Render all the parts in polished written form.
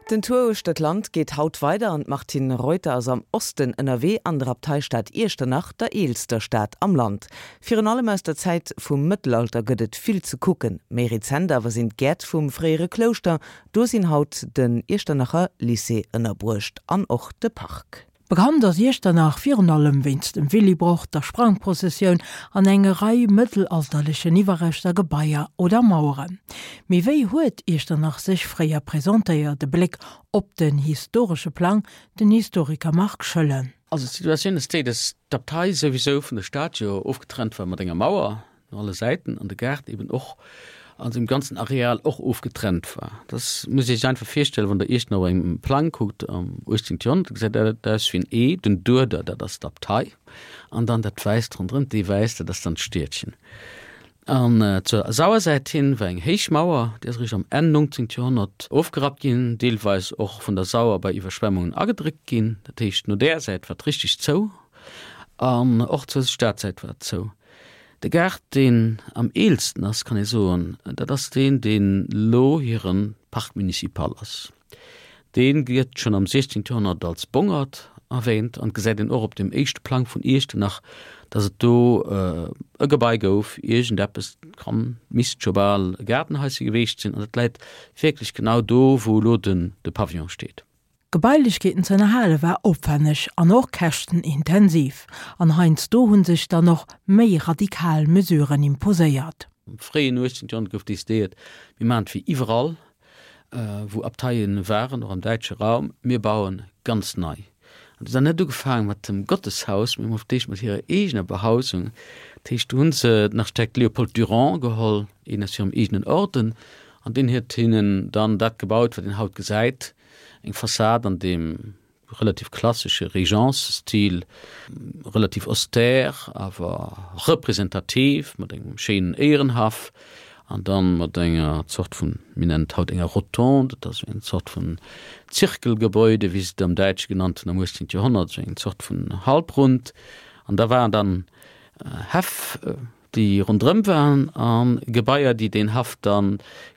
Den Tour uechter d'Land geet haut weider an d'Martine Reuter ass am Osten ënnerwee an der Abteistad Iechternach, der eelster Stad am Land. Virun allem aus der Zäit vum Mëttelalter gëtt et vill ze kucken. Méi rezent awer sinn d'Gäert vum fréiere Klouschter, do sinn haut den Iechternacher Lycée ënnerbruecht an och de Park. Bekannt ass Iechternach virun allem wéinst dem Willibrord, der Sprangprozessioun an enge Rei mëttelalterlechen Iwwerreschter, Gebaier oder Maueren. Mee wéi huet Iechternach sech fréier presentéiert? E Bléck op den historesche Plang, den Historiker Marc Schoellen. Also d'Situatioun ass déi, datt d'Abtei souwisou vun der Stad jo ofgetrennt war mat enger Mauer. No alle Säiten an de Gaart eben och an sengem ganzen Areal och ofgetrennt war. Das muss Dir Iech einfach virstellen, wann Der Iechternach op engem Plang kuckt am 18. Joerhonnert, da gesäit dat aus wéi en E, den Dueder, dat ass d'Abtei, an dann dat Wäisst ronderëm, d'Ee Wäiss, dat ass dann d'Stiedchen. An zur Sauersäit hin war eng héich Mauer, déi ass eréischt am Enn 19. Joerhonnert ofgerappt ginn, deelweis och vun der Sauer bei Iwwerschwemmungen agedréckt ginn. Dat heescht, no där Säit war et richteg zou an och zur Stadsäit war et zou. De Gaart, deen am eelsten ass, kann ee soen, dat ass deen, deen elo hire Parc municipal ass. Dee gëtt schonn am 16. Joerhonnert als Bongert erwähnt an et gesäit een och op dem éischte Plang vun Iechternach, datt et do e Gebai gouf, iergendeppes, kann, misst scho bal e Gaardenhaische geweecht sinn an dat läit wierklech genau do, wou elo de Pavillon steet. D'Gebailechkeeten ze ënnerhale war opwänneg an och käschtenintensiv, an heiansdo hu sech dann och méi radikal Mesuren imposéiert. Am fréien 18. Joerhonnert gouf decidéiert, mir maachen et wéi iwwerall, wou Abteien waren, och am däitsche Raum, mir bauen ganz nei. An se hunn net ugefaange mat dem Gotteshaus, mee hu d'éischt mat hirer eegener Behausung, dat heescht, do hu se den Architekt Léopold Durand geholl, een aus hirem eegenen Orden, an deen huet hinnen dann dat gebaut, wat een haut gesäit, Eng Fassad an deem relativ klassesche Régence-Stil, relativ austère, awer representativ, mat engem schéinen Éierenhaff an dann mat enger Zort vun, mir nennen et haut enger Rotonde, dat ass esou eng Zort vun Zirkelgebäude, wéi se et am Däitsche genannt hunn am 18. Joerhonnert, esou eng Zort vun Halbrund. An da waren dann Häff, déi ronderëm waren a Gebaier, déi deen Haff da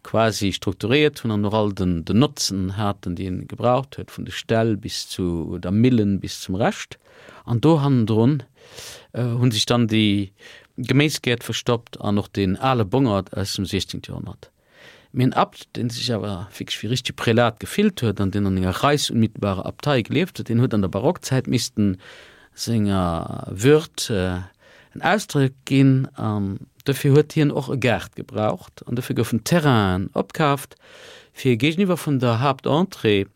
quasi strukturéiert hunn an och all den Notzen haten, déi en gebraucht huet, vun de Ställ bis zu der Millen, bis zum Rescht. An do hannendrun hu sech dann déi Geméisgäert verstoppt an och deen ale Bongert aus dem 16. Joerhonnert. Mee en Abt, deen sech awer wierklech wéi e richtege Prälat gefillt huet an deen an enger reichsunmittelbarer Abtei gelieft huet, deen huet an der Barockzäit missten senger Würd en Ausdrock ginn an dofir huet hien och e Gaart gebraucht an dofir goufen Terrainen opkaaft, fir géigeniwwer vun der Haaptentrée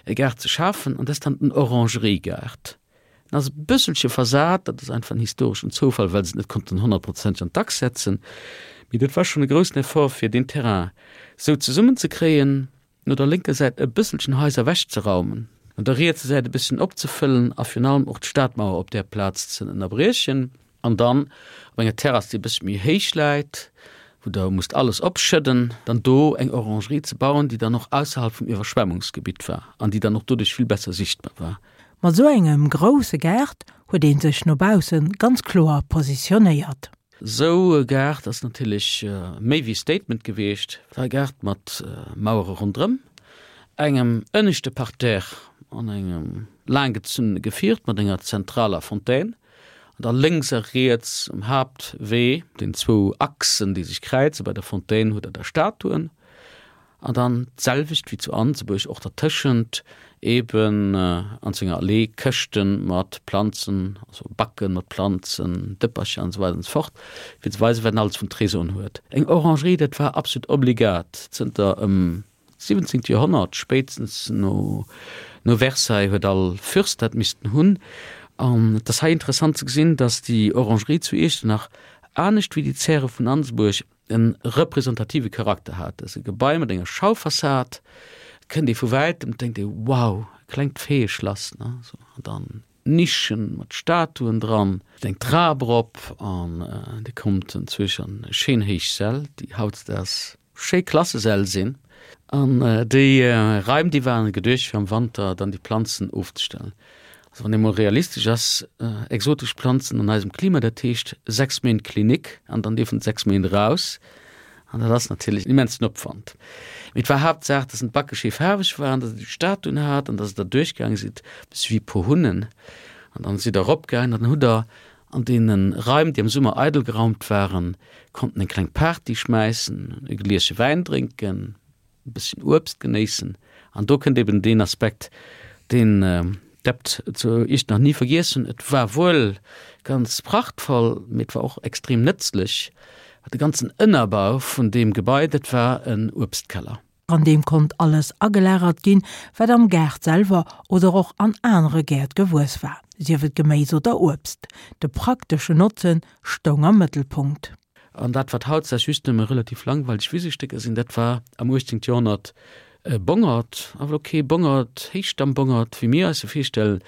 e Gaart ze schafen an dat ass dann den Orangeriegaart. En ass e bësselche versat, dat ass einfach en historeschen Zoufall, well se et net konnten honnertprozenteg an d'Achs setzen, mee dat war schonn e groussen Effort, fir deen Terrain sou zesummenzekréien, no der lénker Säit e bësselchen Haiser ewechzeraumen, no der rietser Säit e bësschen opzefëllen a virun allem och d'Stadmauer op där Plaz ze ënnerbriechen. An dann op enger Terrass, déi e bëssche méi héich läit, wou Der musst alles opschëdden, dann do eng Orangerie ze bauen, déi dann och ausserhalb vum Iwwerschwemmungsgebitt war an déi dann och doduerch vill besser sichtbar war. Mat esou engem grousse Gaart huet ee sech no bausse ganz kloer positionéiert. Esou e Gaart ass natierlech méi wéi e Statement gewiescht. Et war e Gaart mat Mauere ronderëm, engem ënneschte Parterre an engem laanggezunnene Gefiert mat enger zentraler Fontaine. An da lénks a riets um Haaptwee, den zwou Achsen, déi sech kräizen, bei der Fontaine hutt Der da Statuen. An dann d'selwecht wéi zu Anzebuerg och dertëschent eben an senger Allee Këschte mat Planzen, also Backe mat Planzen, Dëppercher an esou weider an esou fort, fir ze weisen, wat en alles vun Trésoren huet. Eng Orangerie, dat war absolut obligat zënter ëm 17. Joerhonnert, spéitstens no no Versailles huet all Fürst dat missten hunn. An et ass hei interessant ze gesinn, datt déi Orangerie zu Iechternach, anescht wéi déi Zäre vun Ansebuerg, e representative Charakter hat. Et ass e Gebai mat enger Schaufassad, et kënnt ee vu wäitem, et denkt ee, wow, e klengt Feeëschlass, ne, sou, an dann Nischen mat Statuen dran, eng Trap erop an Dir kommt enzwousch an schéin héich Säll, déi hautdesdaags schéi Klassesäll sinn. An déi Raim, déi waren geduecht, fir am Wanter dann déi Planzen ofzestellen. Also wann ee mol realistesch ass, exotesch Planzen an eisem Klima, dat heescht 6 Méint Klinik an dann dierfen se 6 Méint eraus. An dat ass natierlech en immensen Opwand. Mee et war Haaptsaach, dass en d'Backe schéi faarweg waren, dass e déi Statuen hat an dass der duerchgaange sidd, e bësse wéi e puer Hunnen. An dann sidd der eropgaangen an dann hutt der an deene Raim, déi am Summer eidel geraumt waren, konnten eng kleng Party schmäissen, e Gliesche Wäin drénken, e bësschen Uebst genéissen. An do kënnt eben deen Aspekt, deen d'Abt zu Iechternach ni vergiess hunn, Et war wuel ganz prachtvoll, mee et war och extrem nëtzlech. De ganzen Ënnerbau vun deem Gebai, dat war en Uebstkeller. An deem konnt alles agelagert ginn, wat am Gaart selwer oder och an anere Gäert gewuess war, sief et Geméis oder Uebst. De prakteschen Notzen stoung am Mëttelpunkt. An dat, wat hautdesdaags just nëmme relativ langweileg Wisestécker sinn, dat war am 18. Joerhonnert e Bongert, awer elo kee Bongert, Héichstammbongert, wéi mir eis e virstellen,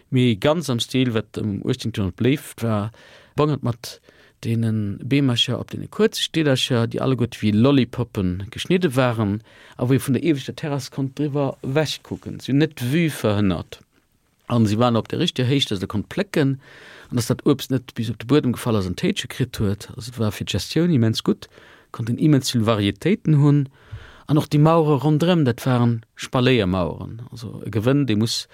mee ganz am Stil, wat am 18. Joerhonnert beléift war, Bongert mat deene Beemercher op deene kuerze Stillercher, déi alleguerte wéi Lollipoppe geschnidde waren a wou ee vun der ieweschter Terrass konnt driwwer ewechkucken. Si hunn net d'Vue verhënnert. An si waren op der richteger Héicht, dass der konnt plécken an dass dat Uebst net bis op de Buedem gefall ass an d'Héitsche kritt huet. Also et war fir d'Gestioun immens gutt, konnt een immens vill Varietéiten hunn. An och déi Mauere ronderëm, dat waren Spaléiermaueren, also e Gewënn, dee muss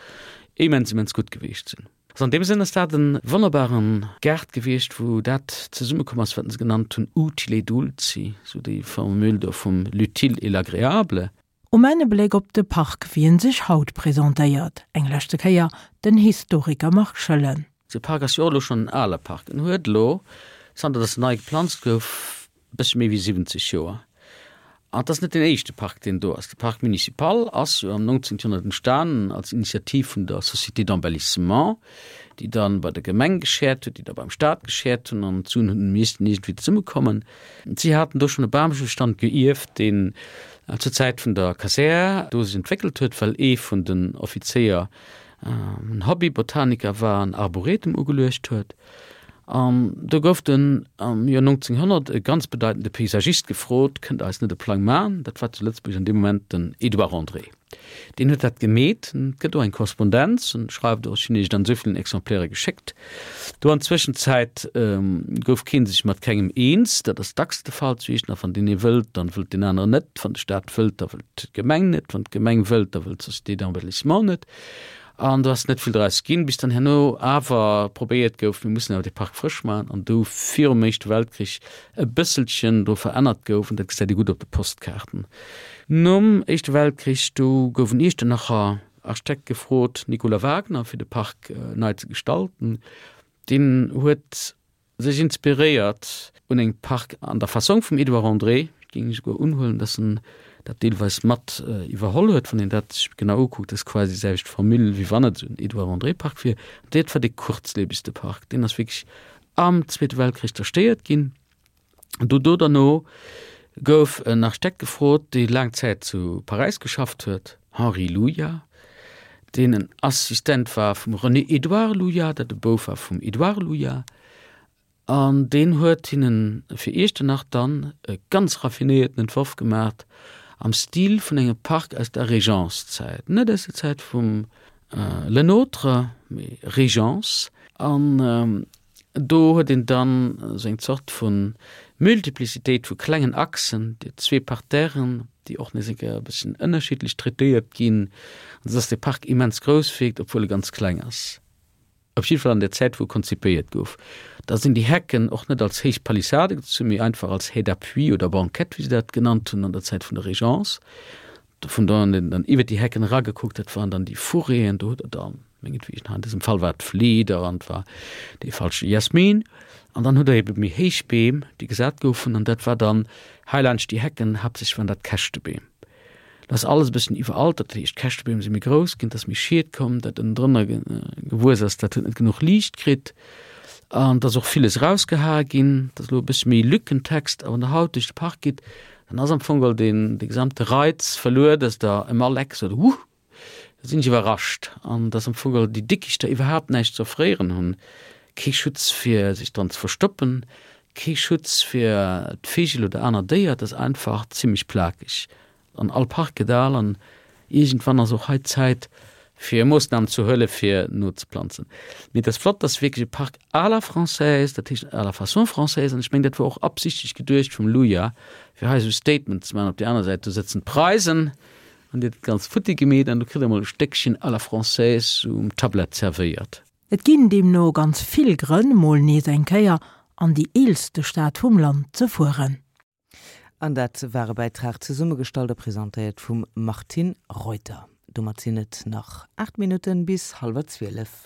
immens, immens gutt gewiescht sinn. Also an deem Sënn ass dat e wonnerbare Gaart gewiescht, wou dat zesummekomm ass, wat se genannt hunn utile et dulci, sou déi Formule do vum l'utile et l'agréable. Um Enn e Bléck op de Park, wéi en sech haut presentéiert. Eng leschte Kéier den Historiker Marc Schoellen. De Park ass jo och elo schonn en ale Park. En huet elo, zanter datt en nei geplanzt gouf, e bëssche méi wéi 70 Joer. An et ass net deen éischte Park, deen do ass. De Parc municipal ass jo am 19. Joerhonnert entstanen als Initiativ vun der Société d'embellissement, déi dann bei der Gemeng geschäert huet, déi da beim Staat geschäert hunn an d'Suen hunn missten iergendwéi zesummekommen. Si haten do schonn e Bambestand geierft, deen zur Zäit vun der Kasär do sech entwéckelt huet, well ee vun den Offizéier en Hobby-Botaniker war an Arboretum ugeluecht huet. An do gouf dunn am Joer 1900 e ganz bedeitende Paysagist gefrot, Kënnt Der eis net e Plang maachen? Dat war zu Lëtzebuerg an deem Moment den Edouard André. Deen huet dat gemeet. Et gëtt och eng Korrespondenz, en schreift och, ech hunn iech et an esou villen Exemplaire geschéckt. Do an Zwëschenzäit gouf kee sech mat kengem eens. Dat ass dacks de Fall zu Iechternach, wann deen ee wëllt, dann wëllt deen aneren net, wann de Staat wëllt, da wëllt d'Gemeng net, wann d'Gemeng wëllt, da wëllt d'Société d'embellissement net. An do ass net vill draus ginn, bis dann herno awer probéiert gouf, mir mussen awer dee Park frësch maachen, an do virum Éischte Weltkrich e bësselchen do verännert gouf, an dat gesäit ee gutt op de Postkaarten. Nom Éischte Weltkrich, do gouf en Iechternacher Architekt gefrot, Nicolas Wagner, fir de Park nei ze gestalten. Deen huet sech inspiréiert un engem Park an der Fassong vum Edouard André, et géing ech esouguer unhuelen, dass en dat deelweis mat iwwerholl huet, wann een dat sech genau ukuckt, ass quasi déi selwecht Formule, wéi wann et esou en Edouard André Park wier. Dat war dee kuerzliewegste Park, deen ass wierklech am Zweete Weltkrich zerstéiert ginn. Do do derno gouf en Architekt gefrot, dee laang Zäit zu Paräis geschafft huet, Henri Luja, deen en Assistent war vum René-Édouard Luja, dat e Bouf war vum Édouard Luja, an deen huet hinnen fir Iechternach dann e ganz raffinéierten Entworf gemaacht am Stil vun engem Park aus der Régence-Zäit, net aus der Zäit vum Le Nôtre, mee Régence. An Do huet een dann esou eng Zort vu Multiplicitéit vu klengen Achsen, déi zwee Parterren, déi och nees eng Kéier e bësschen ënnerschiddlech traitéiert ginn, an esou dass dee Park immens grouss wierkt, obwuel e ganz kleng ass. Op jidde Fall an der Zäit, wou e konzipéiert gouf. Da sinn déi Hecken och net als héich Palissade gezunn, mee einfach als Haie d'appui oder Banquette, wéi se dat genannt hunn an der Zäit vun der Régence. Vun do an dann iwwer déi Hecken eragekuckt, dat waren dann déi Fourréen, do huet der dann, mengetwegen, hei an dësem Fall war et Flieder an et war dee falsche Jasmin. An dann hutt der ebe méi héich Beem, déi gesat goufen, an dat war dann hei laanscht déi Hecken, haaptsächlech waren dat Käschtebeem. Dat ass alles e bëssen iwweraltert, dat heescht d'Käschtebeem si méi grouss ginn, et ass méi Schied komm, dat ënnendrënner gewuess ass, dat huet net genuch Liicht kritt an et ass och villes erausgehae ginn. Et ass elo e bësse méi Lückentext, a wann der haut duerch de Park gitt, Dann ass am Fong geholl deen de gesamte Reiz verluer, dass der ëm all Eck sot, Huh, da sinn ech iwwerrascht. An dass am Fong geholl déi Dickichter iwwerhaapt näischt ze offréieren hunn, kee Schutz fir sech dran ze verstoppen, kee Schutz fir d'Vigel oder aner Déier, et ass einfach zimlech plakeg. An all Park gëtt al an iergendwann ass och hei d'Zäit. Fir Moossnamen ze huele fir nozeplanzen. Mee et ass flott, dass wierklech e Park à la française, dat heescht à la façon française, an ech mengen dat wor och absichtlech geduecht vum Luja, fir hei esou e Statement ze maachen. Op där aner Säit, do sëtzen d'Preisen an déi huet dat Ganzt futti gemeet an do kritt Der emol e Stéckchen à la française um Tablett zerwéiert. Et ginn deemno ganz vill Grënn, mol nees eng Kéier an déi eelste Stad vum Land ze fueren. An dat war e Bäitrag zesummegestallt a presentéiert vum Martine Reuter. Domat sinn et nach 8 Minutten bis hallwer 12.